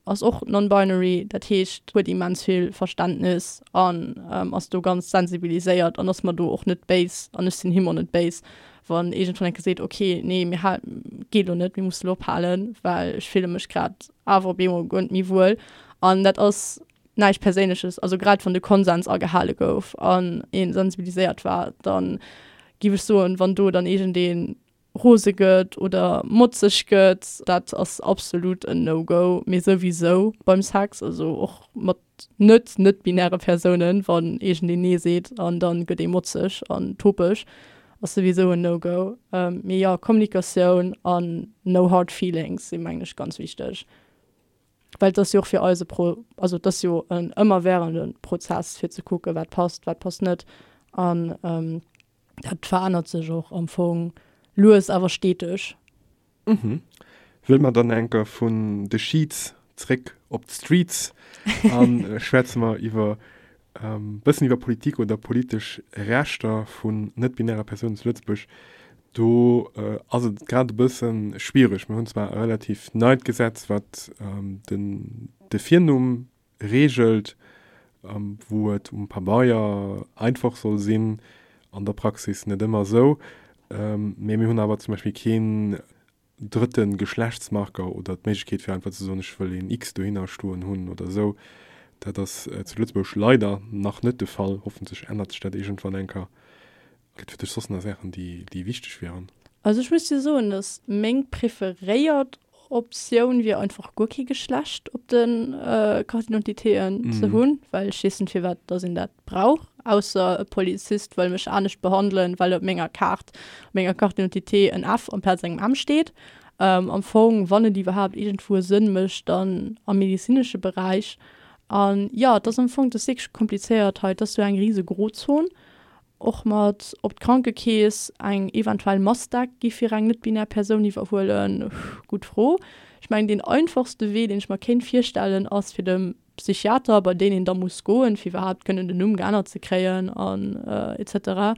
ass och non-binary. Dat heescht, huet immens vill Verständnis an ass do ganz sensibiliséiert an ass mer do och net béis an ech sinn him och net béis, wann iergendwann eng Kéier seet, okay, nee, mir hal, geet elo net, mir musse elo ophalen, well ech fille mech grad awer op eemol guer net méi wuel. An dat ass näischt Perséinleches. Also grad wann de Konsens agehale gouf an ee sensibiliséiert war, da géif ech soen, wann do dann iergendee rose gëtt oder motzeg gëtt, dat ass absolut en No-Go. Mee souwisou beim Sex, also och mat net net-binäre Persounen, wann iergendeen Nee seet an da gëtt ee motzeg an topeg, ass souwisou en No-Go. Mee jo, Kommunikatioun an no hard feelings sinn, mengen ech, ganz wichteg. Well et ass jo och fir eis e Pro, also et ass jo en ëmmerwährende Prozess, fir ze kucken, wat passt, wat passt net. An dat verännert sech och am Fong lues awer steteg. Mhm. Wëlle mer dann enker vun de Sheets zréck op d'Streets a schwätze mer iwwer bëssen iwwer Politik oder politesch Rechter vun net-binäre Persounen zu Lëtzebuerg. Do ass et grad e bësse schwiereg. Mir hunn zwar e relativ neit Gesetz, wat den de Virnumm reegelt, wou et um Pabeier einfach soll sinn, an der Praxis net ëmmer esou. Mee mir hunn awer zum Beispill keen drëtte Geschlechtsmarker oder d'Méiglechkeet fir einfach ze soen, ech wëll een X dohinner stoen hunn oder esou. Dat ass zu Lëtzebuerg leider nach net de Fall. Hoffentlech ännert sech dat iergendwann eng Kéier. Gëtt fir dech soss nach Saachen, déi, déi wichteg wieren? Also ech muss dir soen, dass meng preferéiert Optioun wier einfach guer kee Geschlecht op de Carte d'identitéen ze hunn, well ech weess net firwat dass een dat brauch, ausser e Polizist wëll mech anescht behandelen, well op menger Kaart, op menger Carte d'identité en F amplaz engem M steet. Am Fong, wann et iwwerhaapt iergendwou e Sënn mécht, dann am medezinesche Beräich. An jo, et ass am Fong, et ass wierklech komplizéiert hei, et ass sou eng rise Grozon. Och mat ob d'Krankekeess eng eventuell Massdeck gi fir eng net-binär Persoun iwwerhuelen, gutt Fro. Ech mengen deen einfachste Wee deen ech mer kéint virstellen ass fir dem Psychiater, bei deen een da muss goen fir iwwerhaapt kënnen den Numm geännert ze kréien an etc.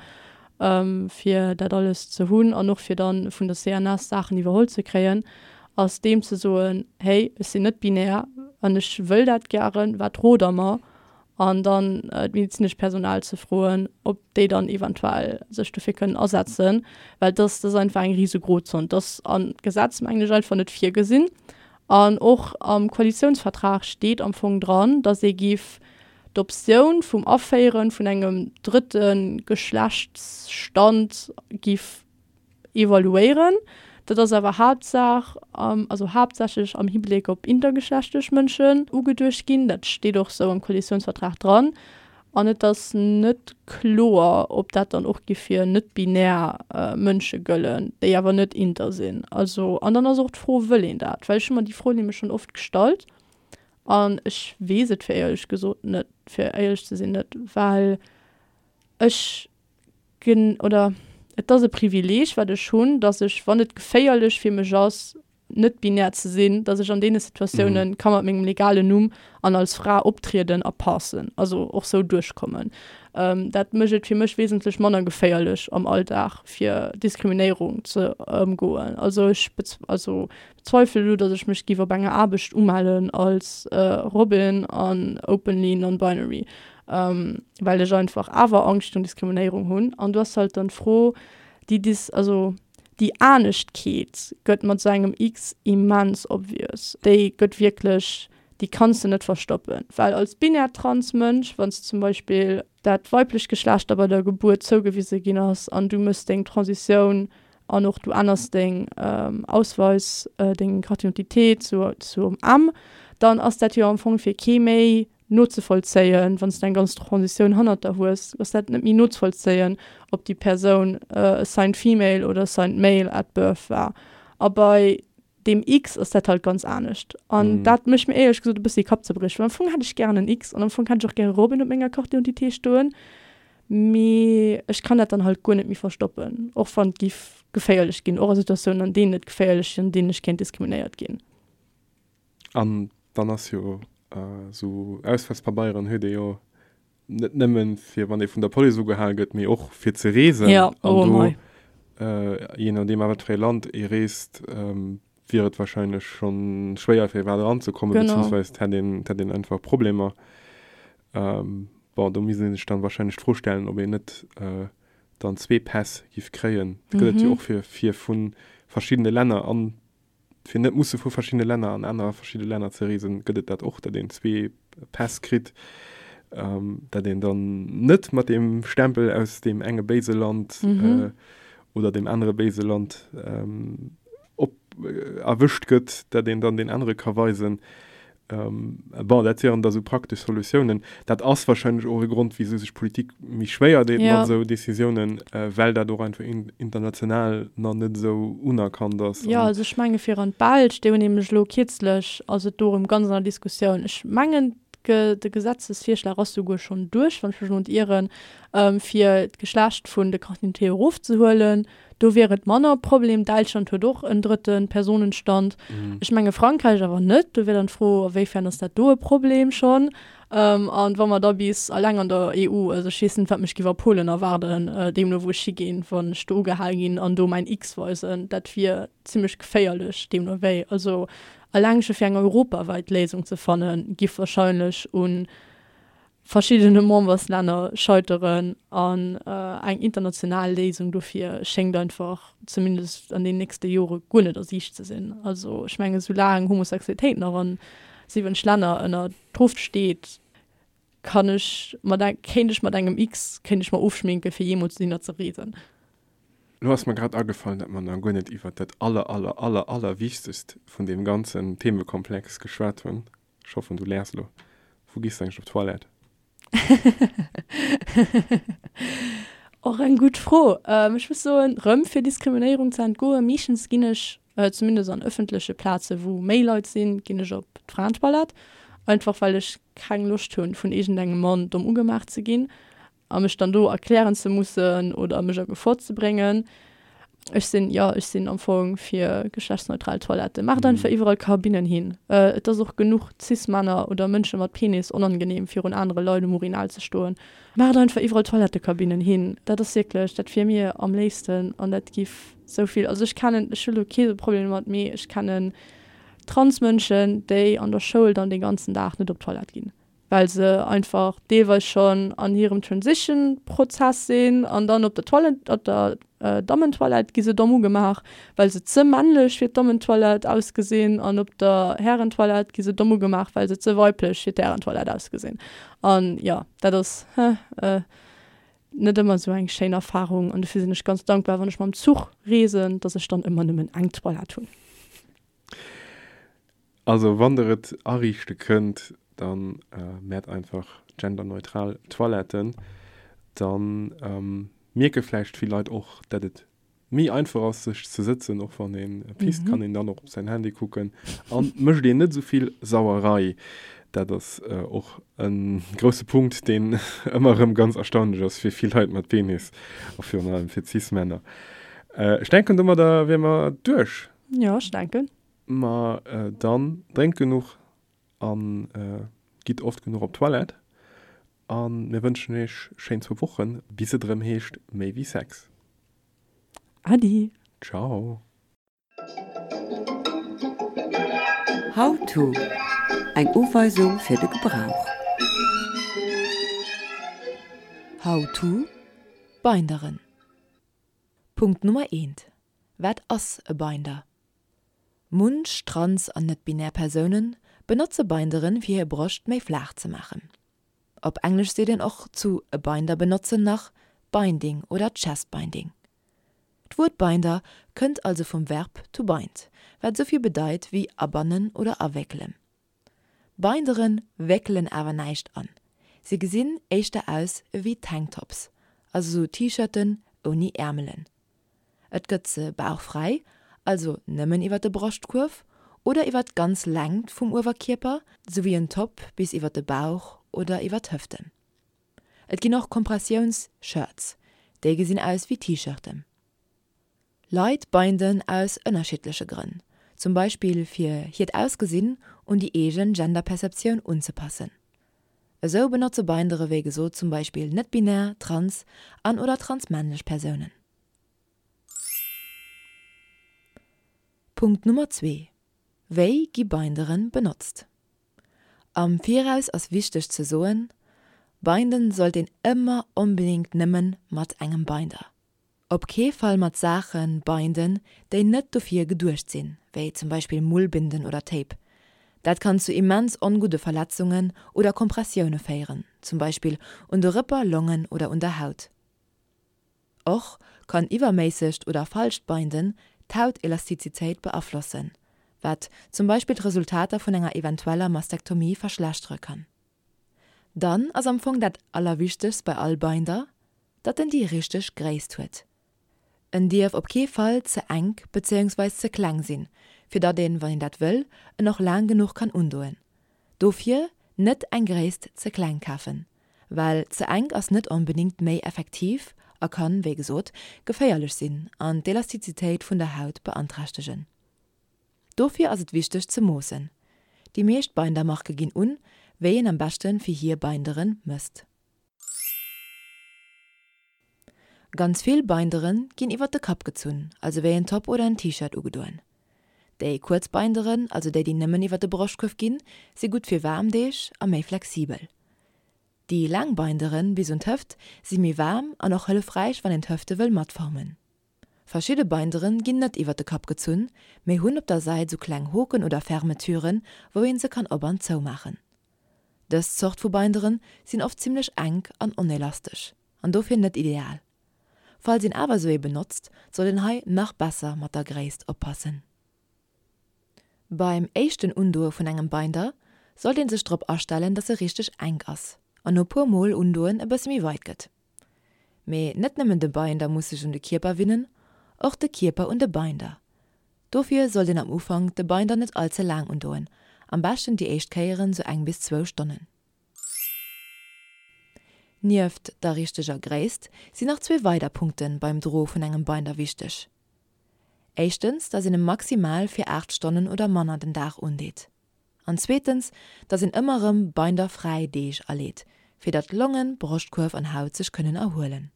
Fir dat alles ze hunn an och fir dann vun der CNS Saachen iwwerholl ze kréien, ass deem ze soen, hey ech sinn net binär an ech wëll dat gären, wat rot der mer? an dann d'medezinescht Personal ze froen, ob déi dann eventuell sech dofir kënnen asetzen, well dass dat ass einfach eng rise Grozon. Dat ass am Gesetz, mengen ech, einfach net virgesinn. An och am Koalitionsvertrag steet am Fong dran, dass ee giff d'Optioun vum Aféiere vun engem drëtte Geschlechtsstand giff evaluéieren. Dat ass awer Haaptsaach, also haaptsächlech am Hibléck op intergeschlechtlech Mënschen ugeduecht ginn. Dat steet och sou am Koalitiounsvertrag dran. An et ass net kloer, ob dat dann och géif fir net-binär Mënsche gëllen, déi awer net inter sinn. Also, an dann ass och d'Fro, wëll een dat? Well ech hu mer déi Fro nämlech schonn oft gestallt an ech weess et fir éierlech gesot net, fir éierlech ze sinn net, well ech Gen, oder et ass e Privileeg, wat ech hunn, dass ech, wann et geféierlech fir mech ass, net binär ze sinn, dass ech an deene Situatiounen ka mat mengem legalen Numm an als Fra optrieden a passen, also och sou duerchkommen. Dat mécht et fir mech wesentlech manner geféierlech am Alldag, fir Diskriminéierung ze ëmgoen. Also ech also bezweifele elo, dass ech mech giff op enger Aarbecht umellen als Robin an openly non-binary. well ech einfach awer Angscht virun Diskriminéierung hunn. An du ass halt dann d'Fro, déi Dis, also déi Aneschtkeet gëtt mat esou engem X immens obvious. Déi gëtt wierklech, déi kanns de net verstoppen. Well als binär trans Mënsch, wann s de zum Beispill dat weiblecht Geschlecht der bei der Gebuert zougewise ginn ass an du méchs deng Transitioun an och du änners deng Ausweis, deng Carte d'identité zu zum M, dann ass dat jo am Fong fir kee méi. nozevollzéien, wann s de eng ganz Transitioun hannert der hues, ass dat net méi nozevollzéien, ob déi Persoun assigned female oder assigned male at birth war. A bei deem X ass dat halt ganz anescht. An dat mécht mir éierlech gesot e bëssi Kappzerbrieche, well am Fong hätt ech gären en X an am Fong hätt ech och gäre Robin op menger Carte d'identité stoen, mee ech kann dat dann halt guer net méi verstoppen, och wann et giff geféierlech ginn, och a Situatiounen, an deenen et geféierlech sinn, an deenen ech kéint diskriminéiert ginn. An dann ass jo esou Ausweispabeieren huet ee jo net nëmmen fir wann ee vun der Police ugehal gëtt, mee och fir ze reesen. Ja, oh An do, mei. jee nodeem a wat fir ee Land ee reest, wier et wahrscheinlech schonn schwéier fir iwwerhaapt eranzekommen, Genau. beziehungsweise et hätt een, et hätt een einfach Problemer. Bon, do misst ee sech dann wahrscheinlech d'Fro stellen, ob een net dann zwee Päss giff kréien. Dat gëtt et jo och fir, fir vu verschiddene Länner an Fir net musse vu verschiddene Länner an aner verschidde Länner ze reesen, gëtt et dat och, datt een zwee Päss kritt, datt een dann net mat deem Stempel aus deem enge béise Land oder deem anere béise Land op erwëscht gëtt, datt een dann deen anere ka weisen. Bon, dat wieren da sou praktesch Solutiounen. Dat ass wahrscheinlech och e Grond, wisou sech d'Politik méi schwéier deet mat esou Decisiounen, well dat och einfach international nach net esou unerkannt ass. Jo, also ech menge fir an d'Belsch, déi hunn nämlech elo kierzlech, ass et do erëm ganz an der Diskussioun, ech mengen de Gesetzesvirschlag ass souguer schonn duerch, wann ech mech elo net ieren, fir d'Geschlecht vun de Carte d'identité erofzehuelen. Do wier et manner e Problem. Däitschland huet och en drëtte Personenstand. Ech menge Frankräich awer net. Do wier dann d'Fro, a wéifern ass dat do e Problem schonn? An wa mer da bis alleng an der EU, also ech weess net, wat mech giff a Polen erwaarden, deemno wou ech higinn, wann ech do ugehal ginn an do mäin X weisen, dat wier zimmlech geféierlech deemno wéi. Also alleng scho fir eng europawäit Léisung ze fannen, giff wahrscheinlech un verschiddene Memberslänner scheiteren an eng international Léisung dofir schéngt einfach, zumindest an den nächste Jore, guer net a Siicht ze sinn. Also ech mengen, soulaang Homosexualitéit nach an 70 Länner ënner Strof steet, kann ech mat, kéint ech mat engem X, kéint ech mer ofschminken, fir jeemools dohinner ze reesen. Lo ass mer grad agefall, dat mer nach guer net iwwert dat aller, aller, aller, allerwichtegst vun deem ganzen Themekomplex geschwat hunn. Ech hoffen du lächs elo. Wou gees de eigentlech op d'Toilette? Och eng gutt Fro. Ech muss soen, rëm fir Diskriminéierung ze entgoen, meeschtens ginn ech, zumindest an ëffentleche Plaze wou méi Leit sinn, ginn ech op d'Fraentoilette. Einfach well ech keng Loscht hunn, vun iergendengem Mann domm ugemaach ze ginn. A mech dann do erklären ze mussen oder mech a Gefor ze bréngen. Ech sinn, jo, ech sinn am Fong fir geschlechtsneutral Toiletten. Maacht einfach iwwerall Kabinnen hin. Et ass och genuch Cis-Männer oder Mënsche mat Penis onangenehm, virun anere Leit um Urinal ze stoen. Maacht einfach iwwerall Toilettekabinnen hin. Dat ass wierklech, dat wier mir am léifsten an dat giff sou vill, also ech kennen, ech hu lo kee Problem domat, mee ech kennen Transmënschen, déi an der Schoul dann dee ganzen Dag net op d'Toilette ginn. well se einfach deelweis schonn an hirem Transition-Prozess sinn an dann op der Toilette, op der Dammentoilette gi se domm ugemaach, well se ze männlech fir d'Dammentoilette ausgesinn an op der Härentoilette gi se domm ugemaach, well se ze weiblech fir d'Härentoilette ausgesinn. An jo, dat ass net ëmmer esou eng schéin Erfarung an dofir sinn ech ganz dankbar, wann ech mam Zuch reesen, dass ech dann ëmmer nëmmen eng Toilette hunn. Also wann der et ariichte kënnt, dann mäert einfach genderneutral Toiletten. Dann mierke vläicht vill Leit och, dat et méi einfach ass sech ze sëtzen, och wann ee pisst, kann een dann och op säin Handy kucken an mécht een net esou vill Sauerei. Dat ass och e grousse Punkt, deen ëmmer erëm ganz erstaunlech ass fir vill Leit mat Penis a virun allem fir Cis-Männer. Ech denken domadder wier mer duerch. Jo, ech denken. Ma dann drénkt genuch an gitt oft genuch op d'Toilette. An mir wënschen iech schéin zwou Wochen, bis et erëm heescht Méi wéi Sex. Adi! Ciao! How to, Eng Uweisung fir de Gebrauch. How to, Binderen. Punkt Nummer eent, Wat ass e Binder? Munch trans an net-binär Persoune benotze Binderen fir hir Broscht méi flaach ze maachen. Op Englesch seet een och zu e Binder benotzen nach Binding oder Chest Binding. D'Wuert Binder kënnt also vum Verb to bind, wat esou vill bedeit wéi abannen oder awéckelen. Bindere wéckelen awer näischt an, se gesinn éischter aus ewéi Tanktops, also sou T-Shirten ouni Äermelen. Et gëtt se bauchfräi, also nëmmen iwwer de Broschtkuerf, oder iwwer d'ganz Längt vum Uewerkierper, sou wéi en Top bis iwwer de Bauch oder iwwer d'Hëften. Et ginn och Kompressiouns-Shirts, déi gesinn aus wéi T-Shirten. Leit binden aus ënnerschiddleche Grënn, zum Beispill fir hiert Ausgesinn un déi eegen Genderperceptioun unzepassen. Esou benotze Bindere wéi gesot zum Beispill net-binär, trans an oder transmännlech Persounen. Punkt Nummer zwee, Wéi gi Binderen benotzt? Am Viraus ass wichteg ze soen, Binden sollt een ëmmer onbedéngt nëmmen mat engem Binder. Op kee Fall mat Saache binden, déi net dofir geduecht sinn, wéi zum Beispill Mullbinden oder Tape. Dat kann zu immens ongudde Verletzungen oder Kompressioune féieren, zum Beispill un de Rëpper, Longen oder un der Haut. Och kann iwwerméissegt oder falscht Binden d'Hautelastizitéit beaflossen, wat zum Beispill d'Resultater vun enger eventueller Mastektomie verschlechtere kann. Dann ass am Fong dat allerwichtegst bei all Binder, datt en déi richteg Gréisst huet. En dierf op kee Fall ze enk bezéiungsweis ze kleng sinn, fir datt een, wann een dat wëll, en och laang genuch kann undoen. Dofir net eng Gréisst ze kleng kafen, well ze enk ass net onbedingt méi effektiv a kann, wéi gesot, geféierlech sinn an d'Elastizitéit vun der Haut beanträchtegen. Dofir ass et wichteg ze moossen. Déi meescht Bindermarke ginn un, wéi een am beschte fir hir Bindere mësst. Ganz vill Bindere ginn iwwert de Kapp gezunn, also wéi en Top oder en T-Shirt ugedoen. Déi kuerz Binderen, also déi déi nëmmen iwwert de Broschtkuerf ginn, si gutt fir waarm Deeg a méi flexibel. Déi laang Binderen bis un d'Hëft si méi waarm an och hëllefräich wann een d'Hëfte wëll matformen. Verschidde Binderen ginn net iwwert de Kapp gezunn, mee hunn op der Säit sou kleng Hoken oder Fermeturen, wou een se kann op an zou maachen. Dës Zort vu Binderen sinn oft zimmlech enk an onelastesch an dofir net ideal. Falls een awer sou ee benotzt, soll een hei nach besser mat der Gréisst oppassen. Beim éischten Undoe vun engem Binder sollt een sech drop astellen, dass e richteg enk ass an no puer mol undoen e bësse méi weit gëtt. Mee net nëmmen de Binder muss sech un de Kierper winnen, och de Kierper un de Binder. Dofir sollt een am Ufank de Binder net all ze laang undoen, am beschten déi éischt Kéieren sou eng bis zwou Stonnen. Nieft der richteger Gréisst sinn nach zwee weider Punkte beim Droe vun engem Binder wichteg. Éischtens, dass een e maximal fir 8 Stonnen oder manner den Dag undeet. An zweetens, dass een ëmmer erëm binderfräi Deeg aleet, fir datt Longen, Broschtkuerf an Haut sech kënnen erhuelen.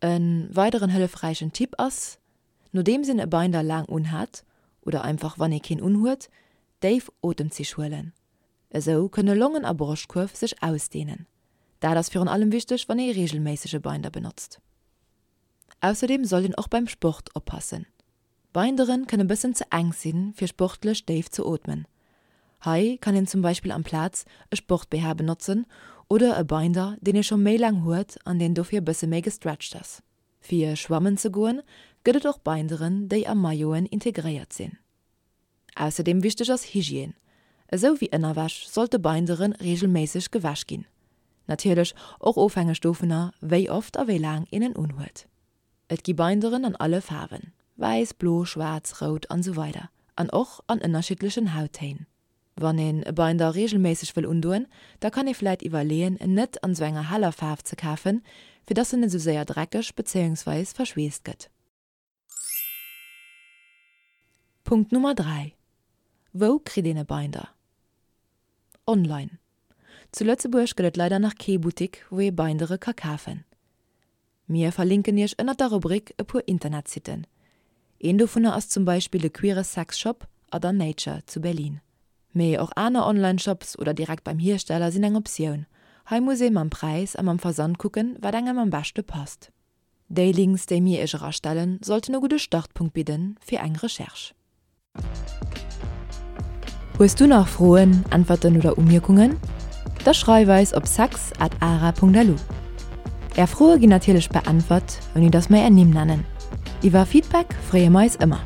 E weideren hëllefräichen Tipp ass, nodeems een e Binder laang unhat, oder einfach wann ee keen unhuet, déif Otemzich huelen. Esou kënne Longen a Broschtkuerf sech ausdeenen. Dat ass virun allem wichteg, wann ee reegelméisseg e Binder benotzt. Ausserdeem sollt een och beim Sport oppassen. Binderen kënne bëssen ze enk sinn fir sportlech déif ze ootmen. Hei kann een zum Beispill amplaz e Sport-BH benotzen oder e Binder deen ee scho méi laang huet an deen dofir bësse méi gestretcht ass. Fir schwammen ze goen gëtt et och Binderen déi a Mailloten integréiert sinn. Ausserdeem wichteg ass Hygiène. Esou wéi Ënnerwäsch sollte Bindere reegelméisseg gewäsch ginn. Natierlech och ofhängeg dovunner wéi oft a wéi laang een en unhuet. Et gi Binderen an alle Faarwen, wäiss, blo, schwaarz, rout an esou weider an och an ënnerschiddlechen Hauttéin. Wann een e Binder reegelméisseg wëll undoen, da kann ee vläit iwwerleeën en net an esou enger heller Faarf ze kafen, fir dass en net esou séier dreckeg bezéiungsweis verschweesst gëtt. Punkt Nummer 3, Wou kritt een e Binder? Online. Zu Lëtzebuerg gëtt et leider nach kee Buttik wou ee Bindere ka kafen. Mir verlinken iech ënnert der Rubrik e puer Internetsitten. Een dovunner ass zum Beispill de queere Sexshop Other Nature zu Berlin. Mee och aner Online-Shops oder direkt beim Hiersteller sinn eng Optioun. Hei muss ee mam Präis a mam Versand kucken, wat engem am beschte passt. Déi Links, déi mir iech erastellen, sollten e gudde Startpunkt bidden fir eng Recherche. Hues du nach Froen, Äntwerten oder Umierkungen? Da schreif eis op sex at ara.lu. Är Froe ginn natierlech beäntwert, ouni datt mer är Nimm nennen. Iwwer Feedback freeë mer eis ëmmer.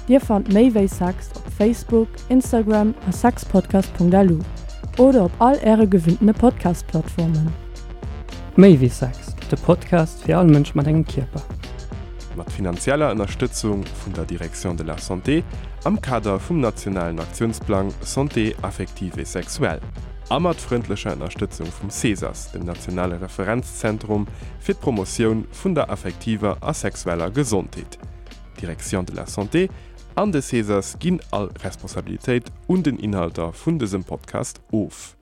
Dir fannt méi wéi Sex op. Facebook, Instagram a sexpodcast.lu oder op all äre gewinntene Podcast-Plattformen. Méi wéi Sex, de Podcast fir all Mënsch mat engem Kierper. Mat finanzieller Ënnerstëtzung vun der Direction de la Santé am Kader vum nationalen Aktiounsplang Santé affective et sexuelle a mat frëndlecher Ënnerstëtzung vum CESAS, dem nationale Referenzzentrum fir d'Promotioun vun der affektiver a sexueller Gesondheet. D'Direction de la Santé an de CESAS ginn all Responsabilitéit un den Inhalter vun dësem Podcast of.